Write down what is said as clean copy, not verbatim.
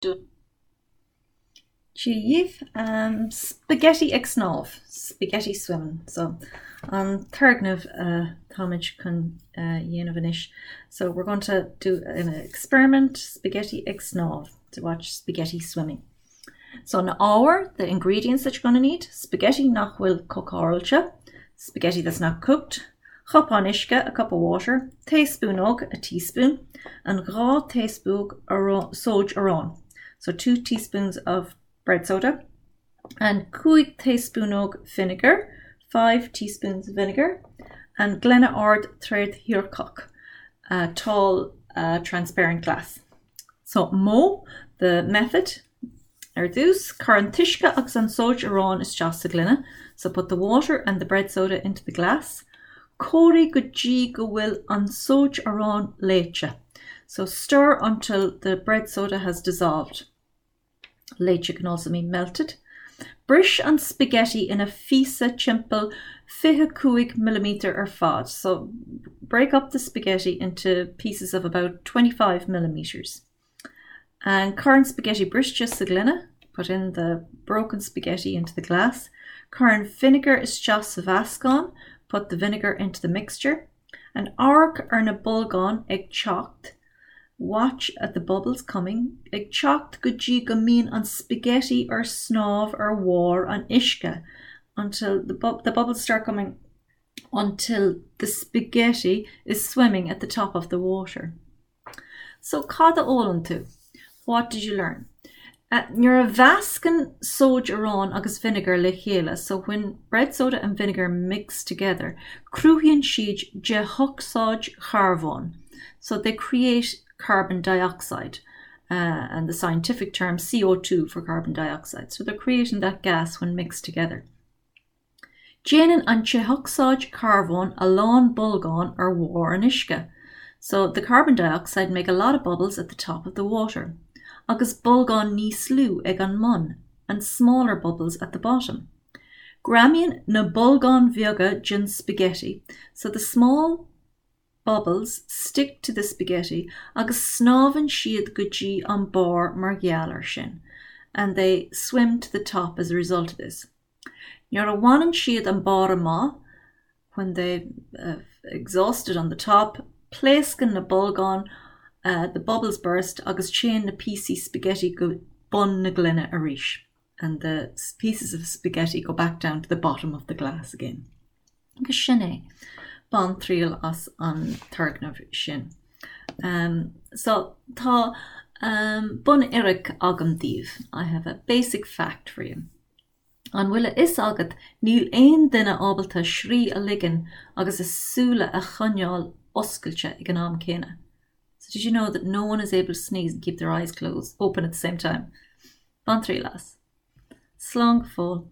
Dia dhaoibh. Spaghetti ag snámh, spaghetti swimming. So an turgnamh táimid chun dhéanamh anois. So we're going to do an experiment, spaghetti ag snámh, to watch spaghetti swimming. So na hábhair, the ingredients that you're going to need, spaghetti nach bhfuil cócáilte, spaghetti that's not cooked, cupán uisce, a cup of water, taespúnóg, a teaspoon, and 2 taespúnóg sóid aráin, so 2 teaspoons of bread soda, and 5 taespúnóg vinegar, 5 teaspoons of vinegar, and gloine ard trédhearcach, a tall uh, transparent glass. So modh, the method, Ar dtús, cuir an t-uisce agus an sóid aráin isteach sa ghloine, so put the water and the bread soda into the glass. Comhraigh go dtí go bhfuil an sóid aráin léite, so stir until the bread soda has dissolved. Léite can also mean melted. Bris an spaghetti ina phíosa timpeall 25 millimetre ar fad, so break up the spaghetti into pieces of about 25 millimetres. And cuir an spaghetti briste sa ghloine, put in the broken spaghetti into the glass. Cuir an vinegar isteach sa mheascán, put the vinegar into the mixture. And amharc ar na bolgáin ag teacht, watch at the bubbles coming, ag teacht go dtí go mbíonn an spaghetti ar snámh ar bharr an uisce, until the, bu the bubbles start coming until the spaghetti is swimming at the top of the water. So cad a d'fhoghlaim tú? What did you learn? Nuair a mheascann sóid aráin agus vinegar le chéile, so when bread soda and vinegar mix together, cruthaíonn siad dé-ocsaíd charbóin, so they create carbon dioxide, uh, and the scientific term CO2 for carbon dioxide. So they're creating that gas when mixed together. Déanann an dé-ocsaíd charbóin a lán bolgán ar bharr an uisce, so the carbon dioxide make a lot of bubbles at the top of the water, agus bolgáin níos lú ag an mbun, and smaller bubbles at the bottom. Greamaíonn na bolgáin bheaga den spaghetti, so the small bubbles stick to the spaghetti agus snámhann siad go dtí an barr mar gheall air sin, and they swim to the top as a result of this. Nuair a bhaineann siad an barr amach, when they have exhausted on the top, pléascann na bolgáin, the bubbles burst, agus téann na píosaí spaghetti go bun na gloine arís, and the pieces of spaghetti go back down to the bottom of the glass again. Agus sin é. Bain triail as an turgnamh sin. So, tá bunfhíric agam daoibh, I have a basic fact for you. An bhfuil a fhios agat níl aon duine ábalta srí a ligean agus a súile a choinneáil oscailte ag an am céanna? So did you know that no one is able to sneeze and keep their eyes closed, open at the same time? Bain triail as. Slán go fóill.